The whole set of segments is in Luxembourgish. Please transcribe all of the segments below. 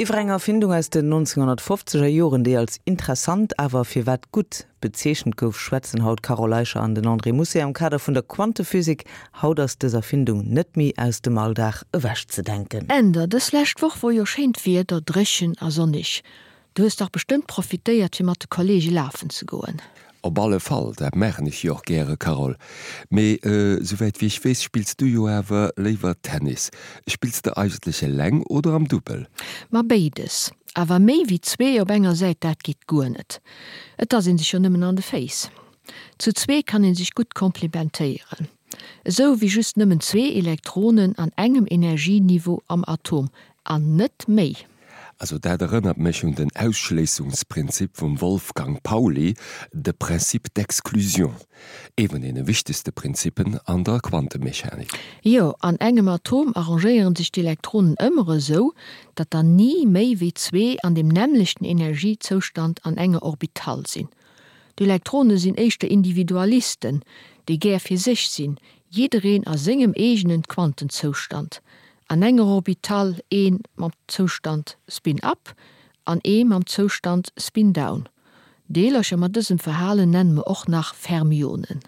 Iwwer eng Erfindung aus den 1950er Joren, déi als interessant, awer firwat gutt bezeechent gouf, schwätzen haut d'Carole Eicher an den André Mousset am Kader vun der Quantephysik. Haut ass dës Erfindung net méi aus dem Alldag ewechzedenken. Änder, Dës lescht Woch wor jo schéint Wieder, dréchen a sonnig. Du hues dach bestëmmt profitéiert fir mat de Kollege lafen ze goen. Op alle Fall, dat maachen ech jo och gäre Carole. Mee souwäit wéi ech weess spills du jo awer léiwer Tennis. Spills de eigentlech eleng oder am Dubbel? Ma béides. Awer méi wéi zwee op enger Säit, dat geet guer net. Et ass een sech jo nëmmen an de Féiss. Zu zwee kann een sech gutt komplimentéieren. Esou wéi just nëmmen zwee Elektronen an engem Energieniveau am Atom, an net méi. Also dat erënnert mech un den Ausschléissungsprinzip vum Wolfgang Pauli, de Principe d'exclusion, ee vun deene wichtegste Prinzippen an der Quantemechanik. Jo, an engem Atom arrangéieren sech d'Elektronen ëmmer esou, datt der ni méi wéi zwee an deem nämmlechten Energiezoustand an enger Orbital sinn. D'Elektrone sinn éischter Individualisten, déi gär fir sech sinn, jiddereen a sengem eegenen Quantenzoustand. An enger Orbital ee mam Zoustand Spin up an ee mam Zoustand Spin down. Deelercher mat dësem Verhalen nenne mer och nach Fermionen.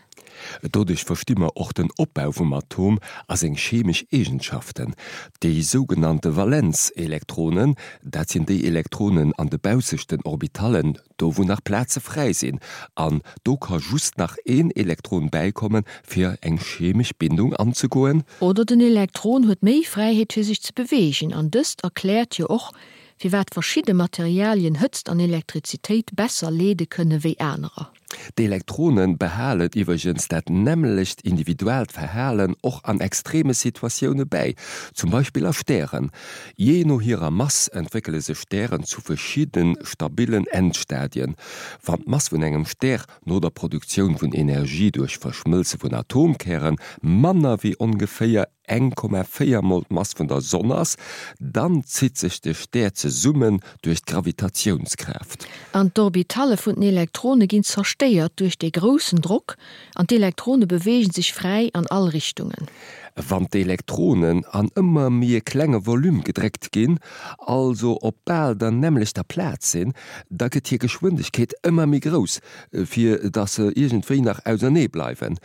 Doduerch versti mer och den Opbau vum Atom a seng chemesch Eegenschaften. Déi sougenannte Valenzelektronen, dat sinn déi Elektronen an de baussechten Orbitallen, do wou nach Plaze fräi sinn, an do ka just nach een Elektron bäikommen, fir eng chemesch Bindung anzegoen. Oder den Elektron huet méi Fräiheet fir sech ze beweegen, an dëst erkläert jo och, firwat verschidde Materialien Hëtzt an Elektrizitéit besser leede kënne wéi anerer. D'Elektrone behalen iwwregens dat nämmlecht individuellt Verhalen och an extreme Situatioune bäi, zum Beispill a Stären. Jee no hirer Mass entwéckele sech Stären zu verschidde stabillen Endstadien. Wann d'Mass vun engem Stär no der Produktioun vun Energie duerch Verschmëlze vun Atomkäre manner wéi ongeféier 1,4 mol d'Mass vun der Sonn ass, dann zitt sech de Stär zesummen duerch d'Gravitatiounskraaft. An d'Orbitalle vun den Elektrone ginn zerstéiert duerch dee groussen Drock an d'Elektrone beweegen sech fräi an all Richtungen. Wann d'Elektronen an ëmmer méi e klenge Volume gedréckt ginn, also op bal der nämmlechter Plaz sinn, da gëtt hir Geschwindegkeet ëmmer méi grouss, fir datt se iergendwéi nach ausernee bleiwen.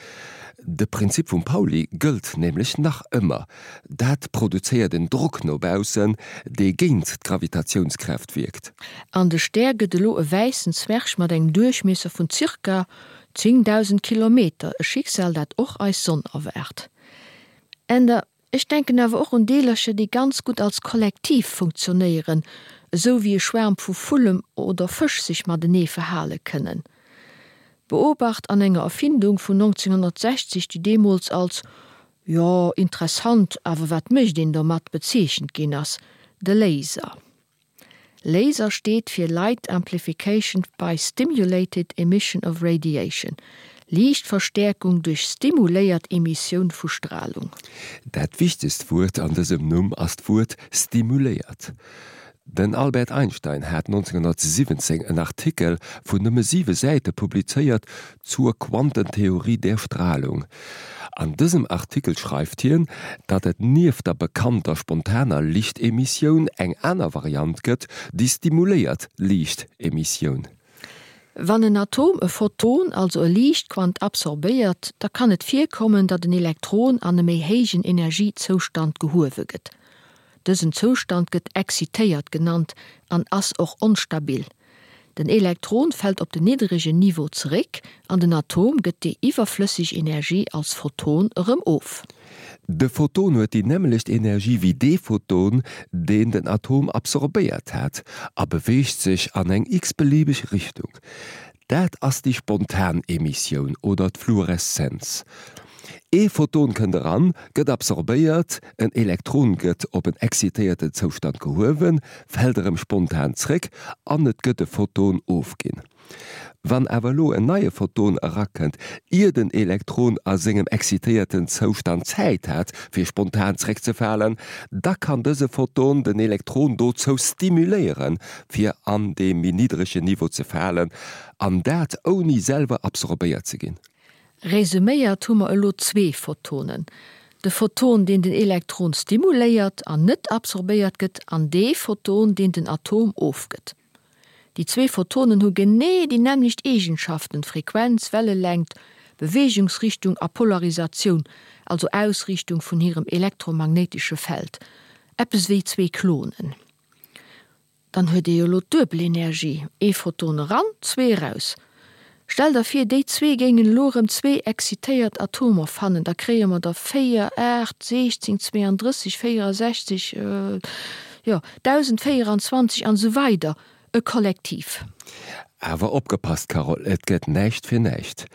De Prinzip vum Pauli gëllt nämlech nach ëmmer, Dat produzéiert en Drock no baussen, dee géint d'Gravitatiounskraaft wierkt. An de Stär gëtt elo e wäissen Zwerg mat engem Duerchmiesser vun zirka 10.000 Kilometer, e Schicksal, dat och eis Sonn erwaart. Änder Ech denken awer och un Deelercher, déi ganz gutt als Kollektiv funktionéieren, esou wéi e Schwaarm vu Vullem oder Fësch sech matenee verhale kënnen. Beobacht an enger Erfindung vun 1960, déi deemools als, jo, interessant, awer wat mécht een domat bezeechent ginn ass, de Laser. Laser steet fir Light Amplification by Stimulated Emission of Radiation, Liichtverstäerkung duerch stimuléiert Emissioun vu Stralung. Dat wichtegst Wuert an dësem Numm ass d'Wuert stimuléiert. Den Albert Einstein hat 1917 en Artikel vun nëmme siwe Säite publizéiert Zur Quantentheorie der Strahlung. An dësem Artikel schreift hien, datt et nieft der bekannter spontaner Lichtemissioun eng aner Variant gëtt, déi stimuléiert Liichtemissioun. Wann en Atom e Photon, also e Liichtquant, absorbéiert, da kann et virkommen, datt en Elektron an e méi héijen Energiezoustand gehuewe gëtt. Dësen Zoustand gëtt excitéiert genannt an ass och onstabil. Den Elektron fält op den niddregen Niveau zeréck an den Atom gëtt déi iwwerflësseg Energie als Photon erëm of. De Photon huet déi nämmlecht Energie wéi dee Photon, deen den Atom absorbéiert hat, a beweegt sech an eng x-beliebeg Richtung. Dat ass déi spontan Emissioun oder d'Fluoreszenz. Ee Photon kënnt eran, gëtt absorbéiert, en Elektron gëtt op en excitéierten Zoustand gehuewen, fält erëm spontan zréck an et gëtt e Photon ofginn. Wann awer elo en neie Photon erakënnt, ier den Elektron a sengem excitéierten Zoustand Zäit hat fir spontan zréckzefalen, da kann dëse Photon den Elektron dozou stimuléieren, fir an dee méi niddregen Niveau ze falen, an dat ouni selwer absorbéiert ze ginn. Resuméiert hu mer elo zwee Photonen. De Photon, deen den Elektron stimuléiert an net absorbéiert gëtt, an dee Photon, deen den Atom ofgëtt. Déi zwee Photonen hu genee déi nämmlecht Eegenschaften, Frequenz, Wellelängt, Beweegungsrichtung a Polarisatioun, also Ausriichtung vun hirem elektromagnéitesche Feld. Eppes wéi zwee Klonen. Dann huet ee jo elo d'duebel Energie, ee Photon eran, zwee eraus. Stell der vir, déi zwee géingen elo erëm zwee excitéiert Atomer fannen, da kréie mer der 4, 8, 16, 32, 64, jo, 1024 an esou weider, e Kollektiv. Awer opgepasst, Carole, et gëtt näischt fir näischt.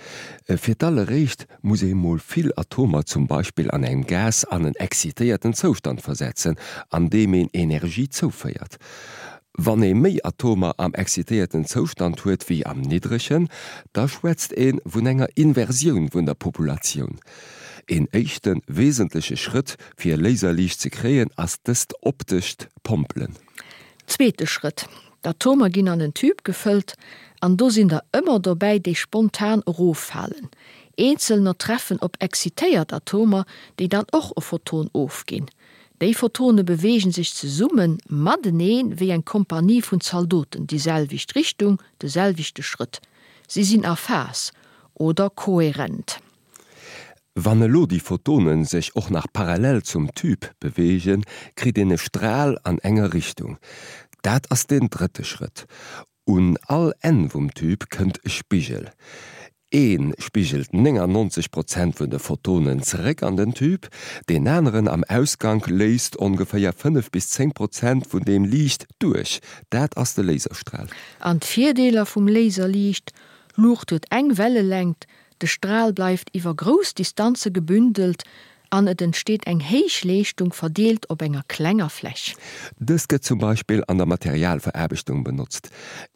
Fir d'alleréischt muss ee mol vill Atomer zum Beispill an engem Gas an en excitéierten Zoustand versetzen, an deem een Energie zouféiert. Wann ee méi Atomer am excitéierten Zoustand huet wéi am niddregen, da schwätzt ee vun enger Inversioun vun der Populatioun. Een éischte wesentleche Schrëtt fir Laserliicht ze kréien ass dëst optescht Pompelen. Zweete Schrëtt, D'Atomer ginn an en Tube gefëllt an do sinn der ëmmer dobäi, déi spontan eroffalen. Eenzelner treffen op excitéiert Atomer, déi dann och e Photon ofginn. Déi Photone beweegen sech zesumme matenee wéi eng Kompanie vun Zaldoten, déi selwecht Richtung, de selwechte Schrëtt. Si sinn a Phas oder koherent. Wann elo déi Photonen sech och nach parallel zum Tube beweegen, kritt een e Stral an enger Richtung. Dat ass den drëtte Schrëtt. Un all Enn vum Tube kënnt e Spigel. Ee spigelt 99 Prozent vun de Photonen zeréck an den Tube, deen aneren am Ausgank léisst ongeféier 5 bis 10 Prozent vun deem Liicht duerch. Dat ass de Laserstral. An d'Virdeeler vum Laserliicht, Luucht huet eng Wellelängt, De Stral bleift iwwer grouss Distanze gebündelt an et entsteet eng héich Leeschtung verdeelt op enger klenger Fläch. Dëst gëtt zum Beispill an der Materialveraarbechtung benotzt.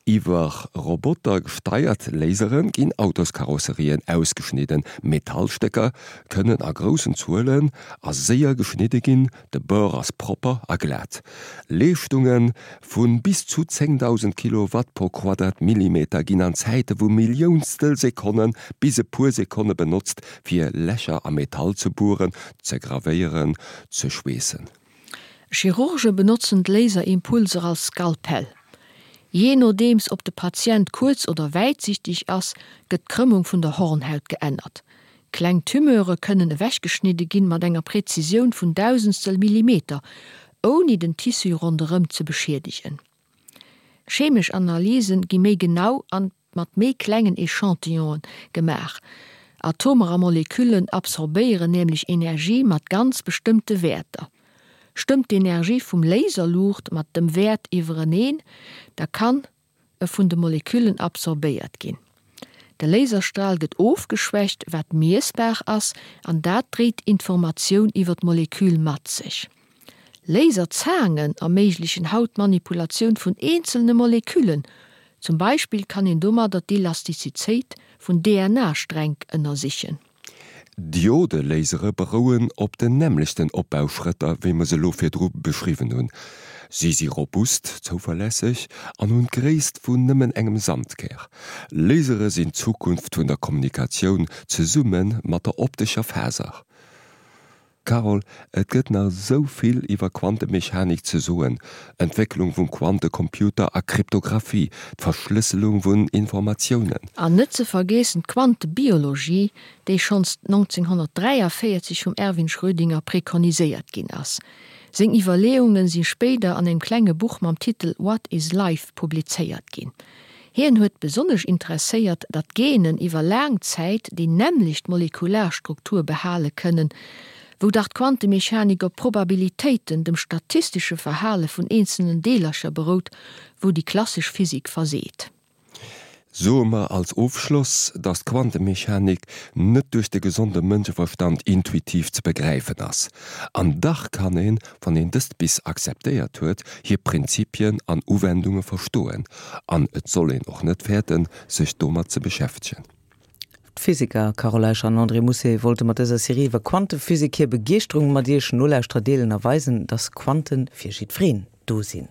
Iwwer Roboter gesteiert Lasere ginn Autoskarosserien ausgeschnidden, Metallstécker kënnen a groussen Zuelen a séier geschnidde ginn, De Bord ass propper a glat. Leeschtunge vu bis zu 10.000 Kilowatt pro Quadratmillimeter ginn an Zäite vu Milliounstel Sekonne bis e puer Sekonne benotzt, fir Lächer am Metall ze bueren, ze gravéieren, ze schweessen. Chirurge benotzen d'Laserimpulser als Skalpell. Jee nodeems ob de Patient kuerz oder wäitsichteg ass, gëtt d'Krëmmung vun der Hornhaut geännert. Kleng Tumeure kënnen ewechgeschnidde ginn mat enger Präzisioun vun Dausendstel Millimeter, ouni den Tissu ronderëm ze beschiedegen. Chemesch Analysen gi méi genau an mat méi klengen Echantillonen gemaach. Atomer a Moleküllen absorbéieren nämlech Energie mat ganz bestëmmte Wäerter. Stëmmt d'Energie vum Laserluucht mat dem Wäert iwwereneen, da kann e vun de Moleküllen absorbéiert ginn. De Laserstral gëtt ofgeschwächt, wat miessbar ass, an dat dréit Informatioun iwwer d'Molekül mat sech. Laserzaangen erméiglechen haut d'Manipulatioun vun eenzelne Moleküllen, zum Beispill kann een domadder d'Elastizität vun DNA-Stränk ënnersichen. Diode-Lasere berouen op den nämmlechten Opbauschrëtter, wéi mer se elo virdru beschriwwen hunn. Si si robust, zouverlässeg an hunn d'Gréisst vun nëmmen engem Sandkär. Lasere sinn d'Zukunft vun der Kommunikatioun, zesumme mat der optescher Faser. Carole, et gëtt nach esou vill iwwer Quantemechanik ze soen, Entwécklung vum Quantecomputer a Kryptographie, d'Verschlësselung vun Informatiounen. An net ze vergeessen d'Quantebiologie, déi schonns 1943 vum Erwin Schrödinger prekoniséiert ginn ass. Seng Iwwerleeungen si spéider an engem klenge Buch mam Titel What is Life publizéiert ginn. Hien huet besonnesch interesséiert, datt Genen iwwer laang Zäit déi nämmlecht molekular Struktur behale kënnen, wou dach d'Quantemechanik op Probabilitéiten, dem statistesche Verhale vun eenzelnen Deelercher berout, wou déi klassesch Physik verseet. Soe mer als Ofschloss, datt d'Quantemechanik net duerch de gesonde Mënscheverstand intuitiv ze begräifen ass. An dach kann een, wann een dëst bis akzeptéiert huet, hir Prinzipien an Uwendunge verstoen, an et soll een och net fäerten, sech domat ze beschäftegen. D'Physiker Carole Eicher an André Mousset wollte mat dëser Serie iwwer Quantephysik hir Begeeschterung mat Iech Nolauschterer deelen a weisen, dass Quanten fir jiddwereen do sinn.